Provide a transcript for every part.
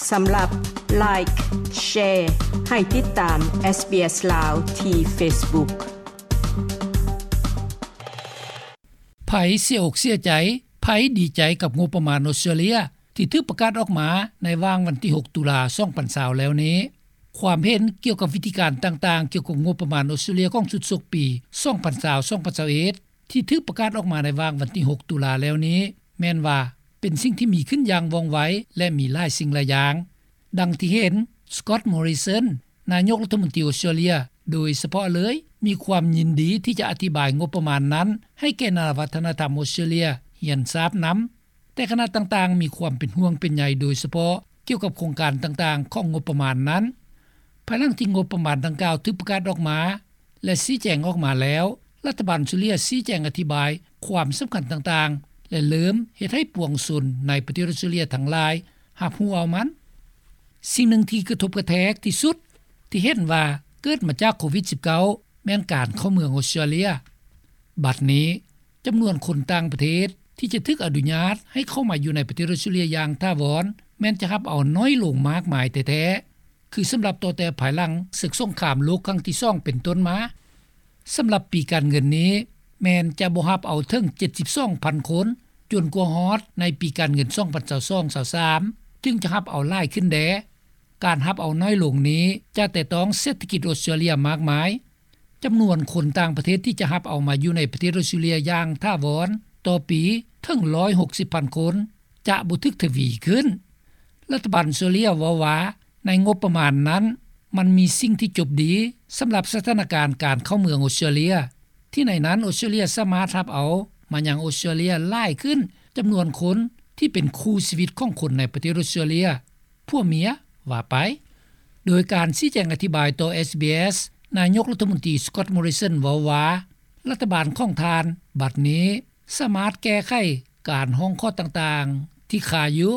ສຳລັບ Like, Share ໃຫ້ຕິດຕາມ SBS ລາວ ທີ່ Facebook. ໃຜເສຍອົກເສຍໃຈ, ໃຜດີໃຈກັບງົບປະມານອົດສະຕຣາເລຍ ທີ່ຖືກປະກາດອອກມາໃນຫວ່າງວັນທີຫົກ ຕຸລາ ສອງພັນຊາວ ແລ້ວນີ້? ຄວາມເຫັນກ່ຽວກັບວິທີການຕ່າງໆ ກ່ຽວກັບງົບປະມານອົດສະຕຣາເລຍຂອງຊຸດສົກປີ ສອງພັນຊາວ ສອງພັນຊາວເອັດ ທີ່ຖືກປະກາດອອກມາໃນຫວ່າງວັນທີຫົກ ຕຸລາ ແລ້ວນີ້ ແມ່ນວ່າເປັນສິ່ງທີ່ມີຂຶ້ນຢ່າງວ່ອງໄວ ແລະ ມີຫຼາຍສິ່ງຫຼາຍຢ່າງ. ດັ່ງທີ່ເຫັນ Scott Morrison ນາຍົກລັດຖະມົນຕີອົດສະຕຣາເລຍ ໂດຍສະເພາະເລີຍ ມີຄວາມຍິນດີທີ່ຈະອະທິບາຍງົບປະມານນັ້ນ ໃຫ້ແກ່ນານະວັດທະນະທຳອົດສະຕຣາເລຍຮຽນຊາບນຳ. ແຕ່ຄະນະຕ່າງໆ ມີຄວາມເປັນຫ່ວງເປັນໃຍ ໂດຍສະເພາະກ່ຽວກັບໂຄງການຕ່າງໆ ຂອງງົບປະມານນັ້ນ. ພາຍຫຼັງທີ່ງົບປະມານດັ່ງກ່າວຖືກປະກາດອອກມາ ແລະ ຊີ້ແຈງອອກມາແລ້ວ, ລັດຖະບານອົດສະຕຣາເລຍຊີ້ແຈງອະທິບາຍຄວາມສຳຄັນຕ່າງໆ ແລະ ເລີ່ມເຮັດໃຫ້ປວງຊົນໃນປະເທດອົດສະຕຣາເລຍທັງຫຼາຍຮັບຮູ້ເອົາມັນ. ສິ່ງໜຶ່ງທີ່ກະທົບກະແທກທີ່ສຸດທີ່ເຫັນວ່າເກີດມາຈາກໂຄວິດສິບເກົ້າ ແມ່ນການເຂົ້າເມືອງອົດສະຕຣາເລຍ. ບັດນີ້ ຈຳນວນຄົນຕ່າງປະເທດທີ່ຈະຖືກອະນຸຍາດໃຫ້ເຂົ້າມາຢູ່ໃນປະເທດອົດສະຕຣາເລຍຢ່າງຖາວອນ ແມ່ນຈະຮັບເອົາໜ້ອຍລົງມາກມາຍແທ້ໆ ຄືສຳລັບຕໍ່ແຕ່ພາຍຫຼັງເສິກສົງຄາມໂລກຄັ້ງທີສອງເປັນຕົ້ນມາ. ສຳລັບປີການເງິນນີ້ ແມ່ນຈະບໍ່ຮັບເອົາເຖິງເຈັດສິບສອງພັນຄົນ ຈົນກວ່າຮອດໃນປີການເງິນສອງພັນຊາວສອງ ຊາວສາມ ຈຶ່ງຈະຮັບເອົາຫຼາຍຂຶ້ນແດ່. ການຮັບເອົາໜ້ອຍລົງນີ້ຈະແຕະຕ້ອງເສດຖະກິດອົດສະຕຣາເລຍມາກມາຍ. ຈຳນວນຄົນຕ່າງປະເທດທີ່ຈະຮັບເອົາມາຢູ່ໃນປະເທດອົດສະຕຣາເລຍຢ່າງຖາວອນຕໍ່ປີເຖິງຮ້ອຍຫົກສິບພັນຄົນ ຈະບໍ່ຖືກທະວີຂຶ້ນ. ລັດຖະບານອົດສະຕຣາເລຍເວົ້າວ່າ ໃນງົບປະມານນັ້ນ ມັນມີສິ່ງທີ່ຈົບດີສຳລັບສະຖານະການການເຂົ້າເມືອງອົດສະຕຣາເລຍ ທີ່ໃນນັ້ນອົດສະຕຣາເລຍສາມາດຮັບເອົາມາຍັງອົດສະຕຣາເລຍຫຼາຍຂຶ້ນຈຳນວນຄົນທີ່ເປັນຄູ່ຊີວິດຂອງຄົນໃນປະເທດອົດສະຕຣາເລຍ ຜົວເມຍວ່າໄປ. ໂດຍການຊີ້ແຈງອະທິບາຍຕໍ່ SBS ນາຍົກລັດຖະມົນຕີ Scott Morrison ເວົ້າວ່າ ລັດຖະບານຂອງທ່ານບັດນີ້ສາມາດແກ້ໄຂການຮ້ອງຂໍຕ່າງໆທີ່ຄາຢູ່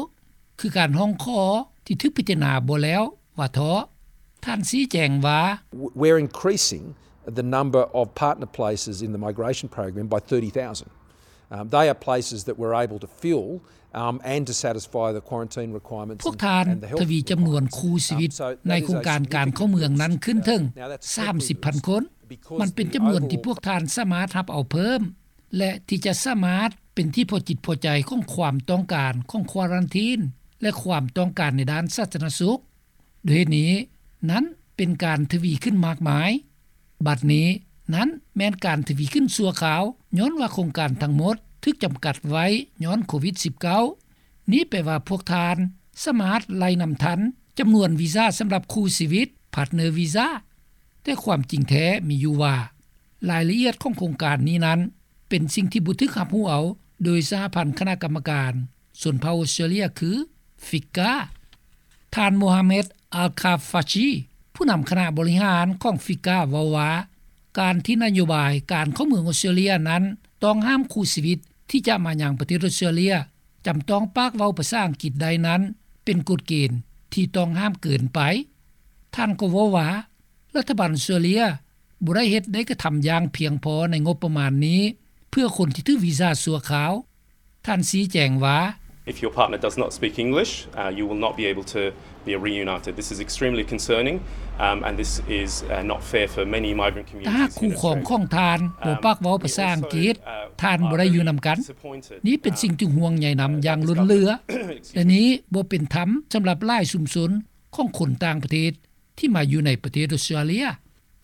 ຄືການຮ້ອງຂໍທີ່ຖືກພິຈາລະນາບໍ່ແລ້ວວ່າເທາະ. ທ່ານຊີ້ແຈງວ່າ We're increasing the number of partner places in the migration program by thirty thousand. Um, they are places that we're able to fill, um, and to satisfy the quarantine requirements. ພວກທ່ານທະວີຈຳນວນຄູ່ຊີວິດໃນໂຄງການການເຂົ້າເມືອງນັ້ນຂຶ້ນເຖິງສາມສິບພັນຄົນ. ມັນເປັນຈຳນວນທີ່ພວກທ່ານສາມາດຮັບເອົາເພີ່ມ ແລະ ທີ່ຈະສາມາດເປັນທີ່ພໍຈິດພໍໃຈຂອງຄວາມຕ້ອງການຂອງຄວາຣັນທີນ ແລະ ຄວາມຕ້ອງການໃນດ້ານສາທາລະນະສຸກ. ດ້ວຍເຫດນີ້ນັ້ນເປັນການທະວີຂຶ້ນມາກມາຍ. ບັດນີ້ນັ້ນແມ່ນການທະວີຂຶ້ນຊົ່ວຄາວ ຍ້ອນວ່າໂຄງການທັງໝົດຖືກຈຳກັດໄວ້ຍ້ອນໂຄວິດສິບເກົ້າ. ນີ້ແປວ່າພວກທ່ານສາມາດໄລ່ນຳທັນຈຳນວນວີຊາສຳລັບຄູ່ຊີວິດ partner visa. ແຕ່ຄວາມຈິງແທ້ມີຢູ່ວ່າ ລາຍລະອຽດຂອງໂຄງການນີ້ນັ້ນ ເປັນສິ່ງທີ່ບໍ່ຖືກຮັບຮູ້ເອົາໂດຍສະຫະພັນຄະນະກຳມະການຊົນເຜົ່າອົດສະຕຣາເລຍ ຄື FICCA. ທ່ານ Mohamed Al-Khafaji ຜູ້ນຳຄະນະບໍລິຫານຂອງ FICCA ເວົ້າວ່າ ການທີ່ນະໂຍບາຍການເຂົ້າເມືອງອົດສະຕຣາເລຍນັ້ນ ຕ້ອງຫ້າມຄູ່ຊີວິດທີ່ຈະມາຍັງປະເທດອົດສະຕຣາເລຍ ຈຳຕ້ອງປາກເວົ້າພາສາອັງກິດໄດ້ນັ້ນ ເປັນກົດເກນທີ່ຕ້ອງຫ້າມເກີນໄປ. ທ່ານກໍເວົ້າວ່າ ລັດຖະບານອົດສະຕຣາເລຍບໍ່ໄດ້ເຮັດ ໄດ້ກະທຳຢ່າງພຽງພໍໃນງົບປະມານນີ້ ເພື່ອຄົນທີ່ຖືກວີຊາຊົ່ວຄາວ. ທ່ານຊີ້ແຈງວ່າ If your partner does not speak English, uh, you will not be able to be reunited. This is extremely concerning, um, and this is, uh, not fair for many migrant communities in Australia. ຖ້າຫາກຄູ່ຄອງຂອງທ່ານບໍ່ປາກເວົ້າພາສາອັງກິດ ທ່ານບໍ່ໄດ້ຢູ່ນຳກັນ. ນີ້ເປັນສິ່ງທີ່ຫ່ວງໃຍນຳຢ່າງລົ້ນເຫຼືອ ແລະ ນີ້ບໍ່ເປັນທຳສຳລັບຫຼາຍຊຸມຊົນຂອງຄົນຕ່າງປະເທດ ທີ່ມາຢູ່ໃນປະເທດອົດສະຕຣາເລຍ.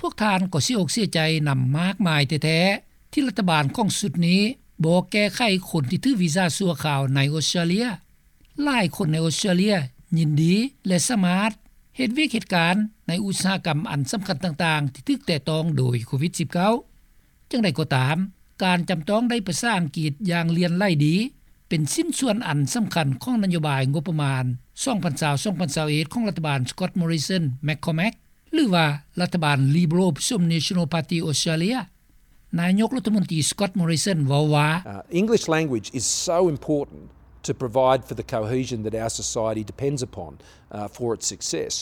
ພວກທ່ານກໍເສຍອົກເສຍໃຈນຳມາກມາຍແທ້ໆ ທີ່ລັດຖະບານຂອງຊຸດນີ້ບໍ່ແກ້ໄຂຄົນທີ່ຖືກວີຊາຊົ່ວຄາວໃນອົດສະຕຣາເລຍ. ຫຼາຍຄົນໃນອົດສະຕຣາເລຍຍິນດີ ແລະ ສາມາດເຮັດວຽກເຮັດການໃນອຸດສາຫະກຳອັນສຳຄັນຕ່າງໆ ທີ່ຖືກແຕະຕ້ອງໂດຍໂຄວິດສິບເກົ້າ. ຢ່າງໃດກໍຕາມ, ການຈຳຕ້ອງໄດ້ພາສາອັງກິດຢ່າງຫຼຽນໄຫຼດີ ເປັນຊິ້ນສ່ວນອັນສຳຄັນຂອງນະໂຍບາຍງົບປະມານ ສອງພັນຊາວ ສອງພັນຊາວເອັດ ຂອງລັດຖະບານ Scott Morrison McCormack ຫຼືວ່າລັດຖະບານ Liberal ຜະສົມ National Party Australia. ນາຍົກລັດຖະມົນຕີ Scott Morrison ເວົ້າວ່າ Uh, English language is so important to provide for the cohesion that our society depends upon, uh, for its success.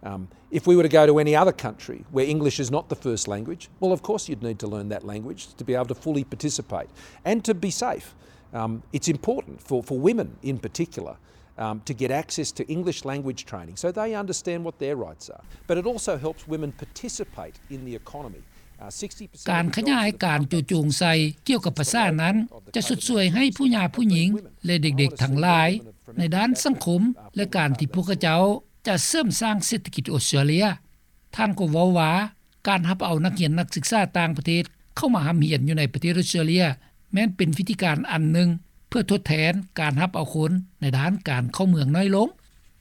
Um, if we were to go to any other country where English is not the first language, well, of course you'd need to learn that language to be able to fully participate and to be safe. Um, it's important for, for women in particular, um, to get access to English language training so they understand what their rights are. But it also helps women participate in the economy. Uh, sixty percent ການຂະຫຍາຍການໂຈະຈົງໃສ່ກ່ຽວກັບພາສານັ້ນ ຈະຊົດຊ່ວຍໃຫ້ຜູ້ຫຍາຜູ້ຍິງ ແລະ ເດັກໆທັງຫຼາຍ ໃນດ້ານສັງຄົມ ແລະ ການທີ່ພວກເຂົາເຈົ້າຈະເສີມສ້າງເສດຖະກິດອອສເຕຣເລຍ. ທ່ານກໍເວົ້າວ່າ ການຮັບເອົານັກຮຽນນັກສຶກສາຕ່າງປະເທດເຂົ້າມາຮ່ຳຮຽນຢູ່ໃນປະເທດອອສເຕຣເລຍ ແມ່ນເປັນວິທີການອັນໜຶ່ງ ເພື່ອທົດແທນການຮັບເອົາຄົນໃນດ້ານການເຂົ້າເມືອງໜ້ອຍລົງ.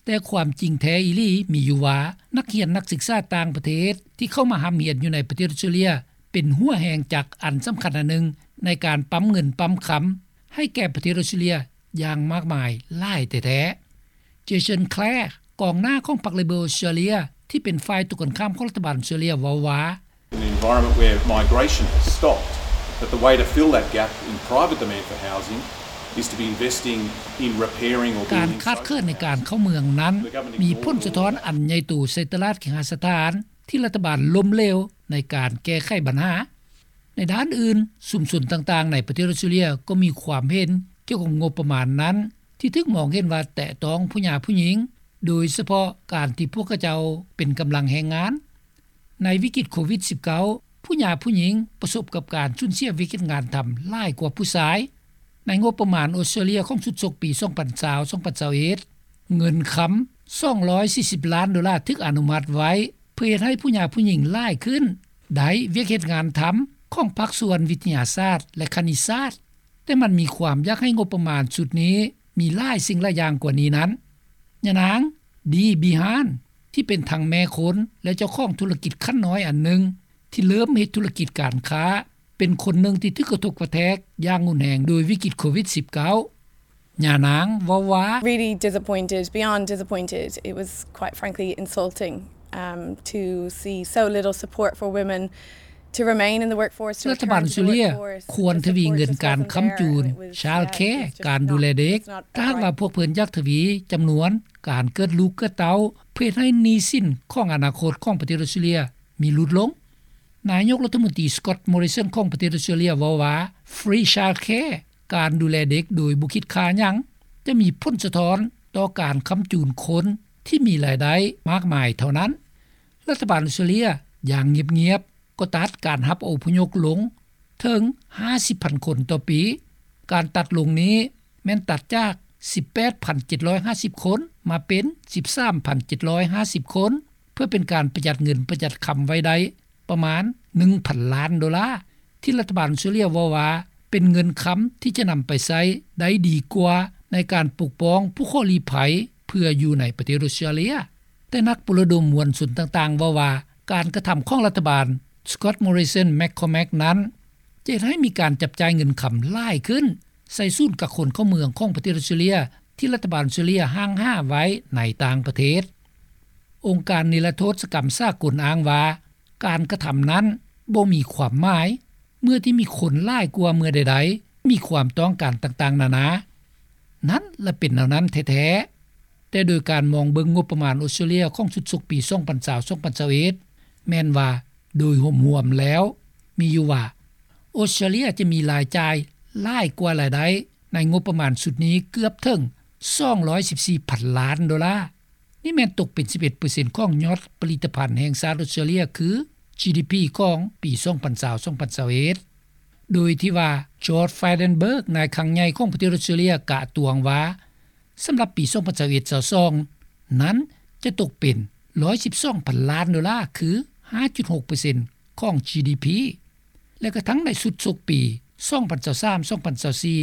ແຕ່ຄວາມຈິງແທ້ອີ່ຫຼີມີຢູ່ວ່າ ນັກຮຽນນັກສຶກສາຕ່າງປະເທດທີ່ເຂົ້າມາຮ່ຳຮຽນຢູ່ໃນປະເທດອອສເຕຣເລຍ ເປັນຫົວແຮງຈັກອັນສຳຄັນອັນໜຶ່ງ ໃນການປ້ຳເງິນປ້ຳຄຳໃຫ້ແກ່ປະເທດອອສເຕຣເລຍ ຢ່າງມາກມາຍຫຼາຍແທ້ໆ. ເຈເຊິນ ແຄລ ກອງໜ້າຂອງພັກເລເບີອອສເຕຣເລຍ ທີ່ເປັນຝ່າຍຕົງກັນຂ້າມຂອງລັດຖະບານອອສເຕຣເລຍ ເວົ້າວ່າ An environment where migration has stopped, that the way to fill that gap in private demand for housing is to be investing in repairing or ການຂາດເຂີນໃນການເຂົ້າເມືອງນັ້ນ ມີຜົນສະທ້ອນອັນໃຫຍ່ໂຕໃສ່ຕະຫຼາດເຄຫະສະຖານ ທີ່ລັດຖະບານລົ້ມເຫຼວໃນການແກ້ໄຂບັນຫາ. ໃນດ້ານອື່ນ, ຊຸມຊົນຕ່າງໆໃນປະເທດອອສເຕຣເລຍກໍມີຄວາມເຫັນກ່ຽວກັບງົບປະມານນັ້ນ ທີ່ຖືກມອງເຫັນວ່າແຕະຕ້ອງຜູ້ຫຍາຜູ້ຍິງ, ໂດຍສະເພາະການທີ່ພວກເຂົາເຈົ້າເປັນກຳລັງແຮງງານ. ໃນວິກິດໂຄວິດສິບເກົ້າ ຜູ້ຫຍາຜູ້ຍິງປະສົບກັບການສູນເສຍວຽກເຮັດງານທຳຫຼາຍກວ່າຜູ້ຊາຍ. ໃນງົບປະມານອອສເຕຣເລຍຂອງຊຸດສົກປີສອງພັນຊາວ ສອງພັນຊາວເອັດ ເງິນຄຳສອງຮ້ອຍສີ່ສິບລ້ານໂດລາຖືກອະນຸມັດໄວ້ ເພື່ອເຮັດໃຫ້ຜູ້ຫຍາຜູ້ຍິງຫຼາຍຂຶ້ນ ໄດ້ວຽກເຮັດງານທຳຂອງພາກສ່ວນວິທະຍາສາດ ແລະ ຄະນິດສາດ, ແຕ່ມັນມີຄວາມຢາກໃຫ້ງົບປະມານຊຸດນີ້ມີຫຼາຍສິ່ງຫຼາຍຢ່າງກວ່ານີ້ນັ້ນ. ຍານາງ ດີ ບີຮານ ທີ່ເປັນທັງແມ່ຄົນ ແລະ ເຈົ້າຂອງທຸລະກິດຂັ້ນນ້ອຍອັນໜຶ່ງ ທີ່ເລີ່ມເຮັດທຸລະກິດການຄ້າ ເປັນຄົນໜຶ່ງທີ່ຖືກກະທົບກະແທກຢ່າງຮຸນແຮງໂດຍວິກິດໂຄວິດສິບເກົ້າ. ຍານາງເວົ້າວ່າ Really disappointed, beyond disappointed. It was quite frankly insulting, um, to see so little support for women to remain in the workforce, to ລັດຖະບານອອສເຕຣເລຍ return to the workforce, ຄວນທະວີເງິນການຄ້ຳຈູນ childcare ການດູແລເດັກ. ຖ້າຫາກວ່າພວກເພິ່ນຢາກທະວີຈຳນວນການເກີດລູກເກີດເຕົ້າ ເພື່ອເຮັດໃຫ້ໜີ້ສິນຂອງອະນາຄົດຂອງປະເທດອອສເຕຣເລຍມີຫຼຸດລົງ. ນາຍົກລັດຖະມົນຕີ Scott Morrison ຂອງປະເທດອອສເຕຣເລຍເວົ້າວ່າ Free Childcare ການດູແລເດັກໂດຍບໍ່ຄິດຄ່າຫຍັງ ຈະມີຜົນສະທ້ອນຕໍ່ການຄ້ຳຈູນຄົນທີ່ມີລາຍໄດ້ມາກມາຍເທົ່ານັ້ນ. ລັດຖະບານອອສເຕຣເລຍຢ່າງງຽບໆກໍຕັດການຮັບອະພົບຍົກລົງເຖິງຫ້າສິບພັນຄົນຕໍ່ປີ. ການຕັດລົງນີ້ແມ່ນຕັດຈາກສິບແປດພັນເຈັດຮ້ອຍຫ້າສິບຄົນ ມາເປັນສິບສາມພັນເຈັດຮ້ອຍຫ້າສິບຄົນ ເພື່ອເປັນການປະຢັດເງິນປະຢັດຄຳໄວ້ໄດ້ປະມານໜຶ່ງພັນລ້ານໂດລາ ທີ່ລັດຖະບານອອສເຕຣເລຍເວົ້າວ່າເປັນເງິນຄຳທີ່ຈະນຳໄປໃຊ້ໄດ້ດີກວ່າໃນການປົກປ້ອງຜູ້ຂໍລີ້ໄພເພື່ອຢູ່ໃນປະເທດອອສເຕຣເລຍ. ແຕ່ນັກປຸລະດົມມວນຊົນຕ່າງໆເວົ້າວ່າ ການກະທຳຂອງລັດຖະບານ Scott Morrison McCormack ນັ້ນ ຈະເຮັດໃຫ້ມີການຈັບຈ່າຍເງິນຄຳຫຼາຍຂຶ້ນ ໃສ່ສູນກັກຄົນເຂົ້າເມືອງຂອງປະເທດອອສເຕຣເລຍ ທີ່ລັດຖະບານອອສເຕຣເລຍຫ້າງຫາໄວ້ໃນຕ່າງປະເທດ. ອົງການນິລະໂທດສະກຳສາກົນອ້າງວ່າ ການກະທຳນັ້ນບໍ່ມີຄວາມໝາຍ ເມື່ອທີ່ມີຄົນຫຼາຍກວ່າເມື່ອໃດໆ ມີຄວາມຕ້ອງການຕ່າງໆນານາ. ນັ້ນລະເປັນແນວນັ້ນແທ້ໆ. ແຕ່ໂດຍການມອງເບິ່ງງົບປະມານອອສເຕຣເລຍຂອງຊຸດສົກປີສອງພັນຊາວ ສອງພັນຊາວເອັດ ແມ່ນວ່າໂດຍຮວມໆແລ້ວ ມີຢູ່ວ່າ ອອສເຕຣເລຍຈະມີລາຍຈ່າຍຫຼາຍກວ່າລາຍໄດ້ໃນງົບປະມານຊຸດນີ້ເກືອບເຖິງສອງຮ້ອຍສິບສີ່ພັນລ້ານໂດລາ. ນີ້ແມ່ນຕົກເປັນສິບເອັດເປີເຊັນຂອງຍອດຜະລິດຕະພັນແຫ່ງຊາດອອສເຕຣເລຍ ຄື ຈີດີພີ ຂອງປີສອງພັນຊາວ ສອງພັນຊາວເອັດ ໂດຍທີ່ວ່າ George Frydenberg ນາຍຄັງໃຫຍ່ຂອງປະເທດອອສເຕຣເລຍ ກະຕວງວ່າ ສຳລັບປີສອງພັນຊາວເອັດ ຊາວສອງນັ້ນ ຈະຕົກເປັນຮ້ອຍສິບສອງພັນລ້ານໂດລາ ຄື ຫ້າຈຸດຫົກເປີເຊັນຂອງ ຈີດີພີ ແລະ ກະທັ່ງໃນຊຸດສົກປີສອງພັນຊາວສາມ ສອງພັນຊາວສີ່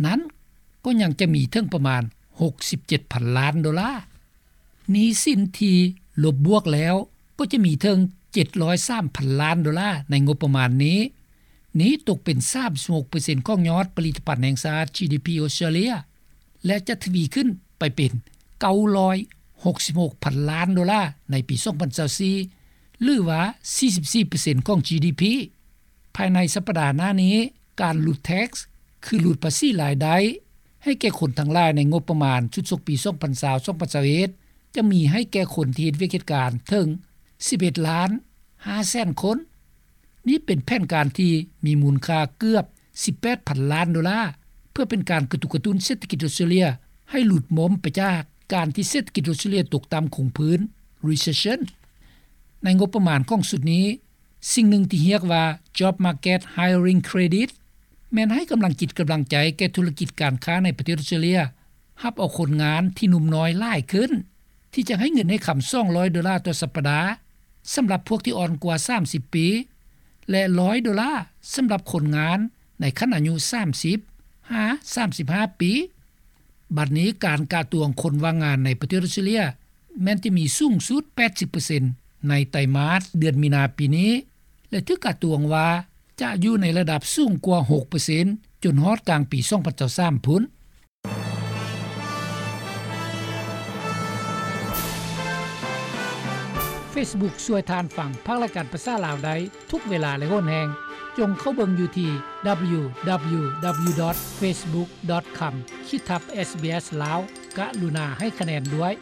ນັ້ນ ກໍຍັງຈະມີເຖິງປະມານຫົກສິບເຈັດພັນລ້ານໂດລາ. ໜີ້ສິນທີ່ລົບບວກແລ້ວກໍຈະມີເຖິງເຈັດຮ້ອຍສາມພັນລ້ານໂດລາໃນງົບປະມານນີ້. ນີ້ຕົກເປັນສາມສິບຫົກເປີເຊັນຂອງຍອດຜະລິດຕະພັນແຫ່ງຊາດ ຈີດີພີ ອອສເຕຣເລຍ ແລະ ຈະທະວີຂຶ້ນໄປເປັນເກົ້າຮ້ອຍຫົກສິບຫົກພັນລ້ານໂດລາໃນປີສອງພັນຊາວສີ່ ຫຼືວ່າ ສີ່ສິບສີ່ເປີເຊັນຂອງ ຈີດີພີ. ພາຍໃນສັບປະດາໜ້ານີ້ ການຫຼຸດ tax ຄືຫຼຸດພາສີລາຍໄດ້ ໃຫ້ແກ່ຄົນທັງຫຼາຍໃນງົບປະມານຊຸດສົກປີສອງພັນຊາວ ສອງພັນຊາວເອັດ ຈະມີໃຫ້ແກ່ຄົນທີ່ເຮັດວຽກເຮັດການເຖິງສິບເອັດລ້ານຫ້າແສນຄົນ. ນີ້ເປັນແຜນການທີ່ມີມູນຄ່າເກືອບສິບແປດພັນລ້ານໂດລາ ເພື່ອເປັນການກະຕຸກກະຕຸ້ນເສດຖະກິດອອສເຕຣເລຍ ໃຫ້ຫຼຸດໝົມໄປຈາກການທີ່ເສດຖະກິດອົດສະຕຣາເລຍຕົກຕໍ່າຄົງພື້ນ Recession. ໃນງົບປະມານຂອງຊຸດນີ້, ສິ່ງໜຶ່ງທີ່ຮຽກວ່າ Job Market Hiring Credit ແມ່ນໃຫ້ກຳລັງຈິດກຳລັງໃຈແກ່ທຸລະກິດການຄ້າໃນປະເທດອົດສະຕຣາເລຍ ຮັບເອົາຄົນງານທີ່ໜຸ່ມນ້ອຍຫຼາຍຂຶ້ນ ທີ່ຈະໃຫ້ເງິນໃນຄຳສອງຮ້ອຍໂດລາຕໍ່ສັບປະດາ ສຳລັບພວກທີ່ອ່ອນກວ່າສາມສິບປີ ແລະ ຮ້ອຍໂດລາ ສຳລັບຄົນງານໃນຂັ້ນອາຍຸສາມສິບຫາສາມສິບຫ້າປີ. ບັດນີ້ການກະຕວງຄົນວ່າງງານໃນປະເທດອົດສະຕຣາເລຍ ແມ່ນຈະມີສູງສຸດແປດສິບເປີເຊັນ ໃນໄຕມາດເດືອນມີນາປີນີ້ ແລະ ຖືກກະຕວງວ່າຈະຢູ່ໃນລະດັບສູງກວ່າຫົກເປີເຊັນ ຈົນຮອດກາງປີສອງພັນຊາວສາມພຸ້ນ. Facebook ຊ່ວຍທ່ານຟັງພາກລາຍການພາສາລາວໄດ້ທຸກເວລາ ແລະ ໂຫນແຮງ. ຈົ່ງເຂົ້າເບິ່ງຢູ່ທີ່ www.facebook.com/ SBS Lao. ກະລຸນາໃຫ້ຄະແນນດ້ວຍ.